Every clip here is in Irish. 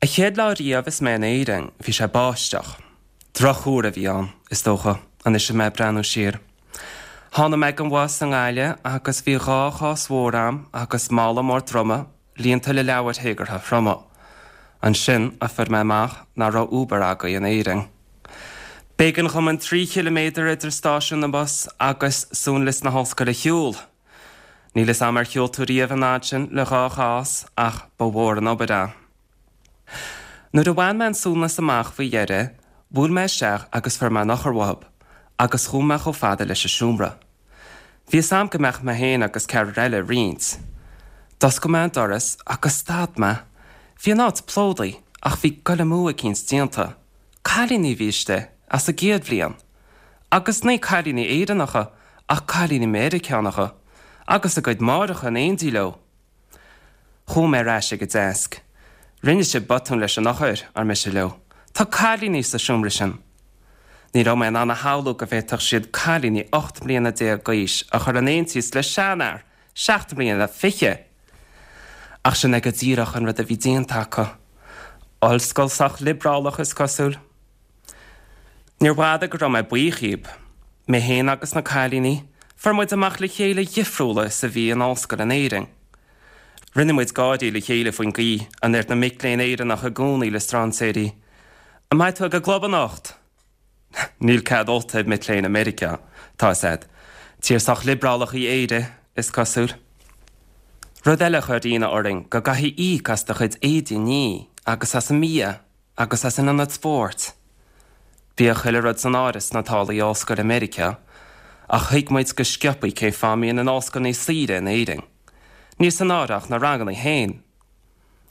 An chéad lá riamh is mé in Éirinn, bhí sé ag báisteach. Drochthuar a bhí ann, is dócha, anois is mé ag breathnú siar. Tháinig mé ag an bhus i nGaillimh agus bhí dhá chás mhór a'm agus mála mór droma líonta le leabhair théagartha throma. Ansin a fuair mé amach nach raibh Uber agaibh in Éirinn. B'éigean dhom an 3 chiliméadar idir stáisiún na mbus agus suanlios na hollscoile a shiúl. Níl 'fhios a'm ar shiúil tú riamh an fhad sin le dhá chás ach ba mhór an obair é. Nuair a bhain mé an suanlios amach faoi dheireadh, bhuail mé isteach agus fuair mé an eochair uathub, agus chuaigh mé chomh fada leis an seomra. Bhí 'fhios a'm go mbeadh mé féin agus ceathrar eile ag roinnt. D'oscail mé an doras agus stad mé. Bhí an áit plódaithe ach bhí goil amú eicínt déanta. Cailíní a bhí istigh, as an gcéad bhliain. Agus ní cailíní Éireannacha ach cailíní Meiriceánacha, agus a gcuid máithreacha in éindí leo. Chuaigh mé ar ais ag an deasc. Rinne sibh botún leis an eochair, ar mise leo. Tá cailíní sa seomra sin. Ní raibh mé in ann a shamhlú go bhféadfadh siad cailíní 18 mbliana d'aois a chur in aontíos le seanfhear seacht mbliana fichead! Ach sin é go díreach an rud a bhí déanta acu. Ollscoil sách liobrálach, is cosúil. Níorbh fhada go raibh mé buíoch dhíob. Mé féin agus na cailíní, fuair muid amach le chéile a dhifriúla is a bhí an ollscoil in Éirinn. Rinne muid gáirí le chéile faoin gcaoi a ndeir na mic léinn Éireannacha i gcónaí le strainséirí, An mbeidh tú ag an gclub anocht? Níl cead ólta ag mic léinn i Meiriceá, tá 'fhios a'd. Tír sách liobrálach í Éire, is cosúil. Rud eile a chuir ionadh orainn go gcaithfidh íoc as do chuid éadaí a ní agus as an mbia. agus as an ionad spóirt. Bhíodh chuile rud san áireamh sna táillí ollscoile i Meiriceá, ach thuig muid go sciobthaí cén fáth a mbíonn an ollscoil níos saoire in Éirinn. Níl san áireamh ach na ranganna féin.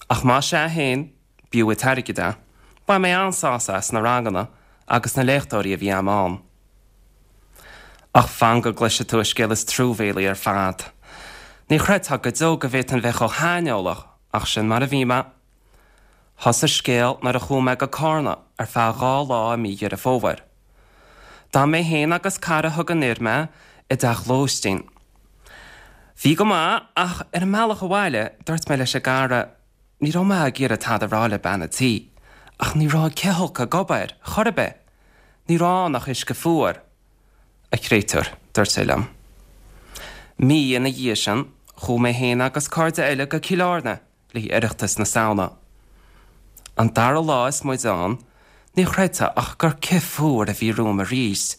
Ach más ea féin, b'fhiú an t-airgead é. Bhain mé an-sásamh as na ranganna agus na léachtóirí a bhí a'm ann. Ach fan go gcloisfidh tú an scéal is truamhéalaí ar fad. Ní chreidfeá go deo go bhféadfainn bheith chomh haineolach, ach sin mar a bhí mé. Thosaigh an scéal nuair a chuaigh mé go Cárna ar feadh dhá lá i mí Dheireadh Fómhair. D'fhan mé féin agus cara a thug anoir mé i dteach lóistín. Bhí go maith ach ar an mbealach abhaile dúirt mé leis an gcara, ní raibh mé ag iarraidh tada a rá le bean an tí, ach ní raibh an cithfholcadh ag obair, chor ar bith. Ní raibh ann ach uisce fuar. A chréatúir, dúirt sé liom. Mí ina dhiaidh sin, chuaigh mé féin agus cairde eile go Cill Airne le haghaidh Oireachtas na Samhna. An dara lá is muid ann, ní chreidfeá ach gur cith fuar a bhí romham arís.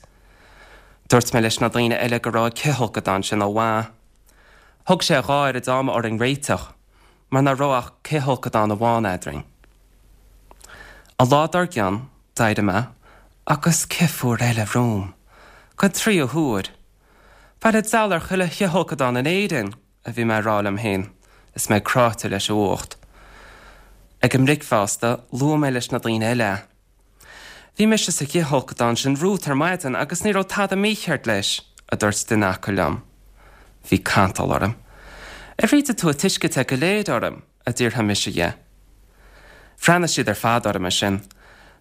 Dúirt mé leis na daoine eile go raibh an cithfholcadán sin ó mhaith. Thóg sé a dhá oiread ama orainn réiteach, mar nach raibh ach cithfholcadán amháin eadrainn. An lá dár gcionn, d'éirigh mé agus cith fuar eile romham. Don tríú huair. Bail an diabhail ar chuile chithfholcadán in Éirinn! a bhí mé ag rá liom féin is mé cráite leis an bhfuacht. Ag an mbricfeasta, luaigh mé leis na daoine eile é. Bhí mise sa chithfholcadán sin romhat ar maidin agus ní raibh tada mícheart leis, a dúirt duine acu liom. Bhí cantal orm. Ar ídigh tú an t-uisce te go léir orm? a d'fhiafraigh mise dhe. Bhreathnaigh siad ar fad orm ansin.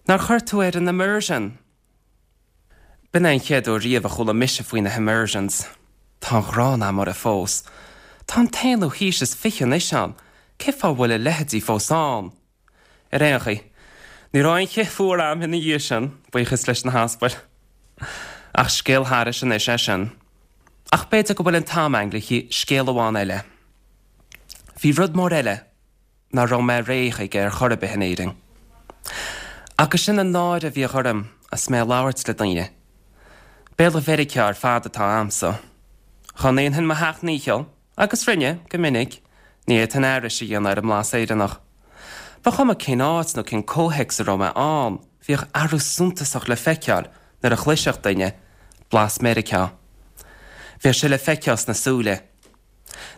Nár chuir tú ar an immersion? B'in é an chéad uair riamh a chuala mise faoi na himmersions. Tá an ghráin a'm orthu fós. Tá an t-aonú haois is fiche anois ann, cé fáth a bhfuil a leithéidí fós ann? Ar aon chaoi, ní raibh aon chith fuar a'm ina dhiaidh sin, buíochas leis na haspail. Ach scéal thairis anois é sin. Ach b'fhéidir go bhfuil an t-am a'inn le haghaidh scéal amháin eile. Bhí rud mór eile. nach raibh mé réidh chuige ar chor ar bith in Éirinn. Agus sin an náire a bhíodh orm is mé ag labhairt le daoine. Béarla Mheiriceá ar fad atá a'msa. Dhá ndéanfainn mo sheacht ndícheall, agus rinne, go minic, ní fhéadfainn aithris a dhéanamh ar an mblas Éireannach. Ba chuma cén áit nó cén comhthéacs a raibh mé ann, bhíodh athrú suntasach le feiceáil nuair a chloisfeadh duine blas Meiriceá. Bhíodh sé le feiceáil sna súile.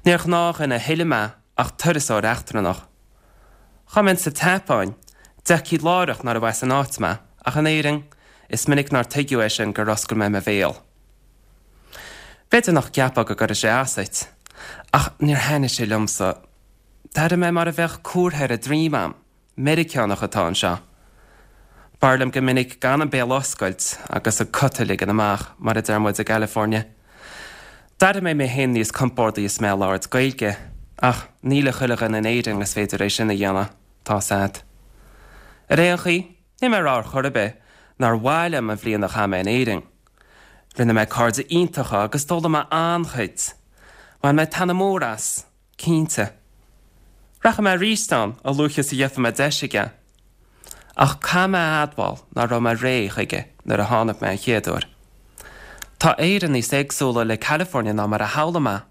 Níor ghnáthdhuine a thuilleadh mé ach turasóir eachtrannach. Dhá mbeinn sa tSeapáin, d'fheicfí láithreach nárbh as an áit mé, ach in Éirinn, is minic nár tuigeadh é sin gur oscail mé mo bhéal. B'fhéidir nach gceapfá go gcuirfeadh sé as duit, ach níor thaitnigh sé liomsa. D'airigh mé mar a bheadh comhartha ar an droim a'm. Meiriceánach atá anseo. B'fhearr liom go minic gan an béal a oscailt agus an cut a ligean amach, mar a deir muid i gCalifornia. D'airigh mé mé féin níos compórdaí is mé ag labhairt Gaeilge, ach ní le chuile dhuine in Éirinn is féidir é sin a dhéanamh, tá's a'd. Ar aon chaoi, níl mé ag rá ar chor ar bith nár mhaith liom an bhliain a chaith mé in Éirinn. Rinne mé cairde iontacha agus d'fhoghlaim mé an-chuid. Bhain mé taitneamh mór as, cinnte. Rachaidh mé arís ann a luaithe is a gheobhaidh mé deis aige. Ach caithfidh mé a admháil nach raibh mé réidh chuige nuair a tháinig mé an chéad uair. Tá Éire níos éagsúla le California ná mar a shamhlaigh mé.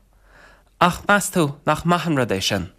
Ach meas tú nach maith an rud é sin?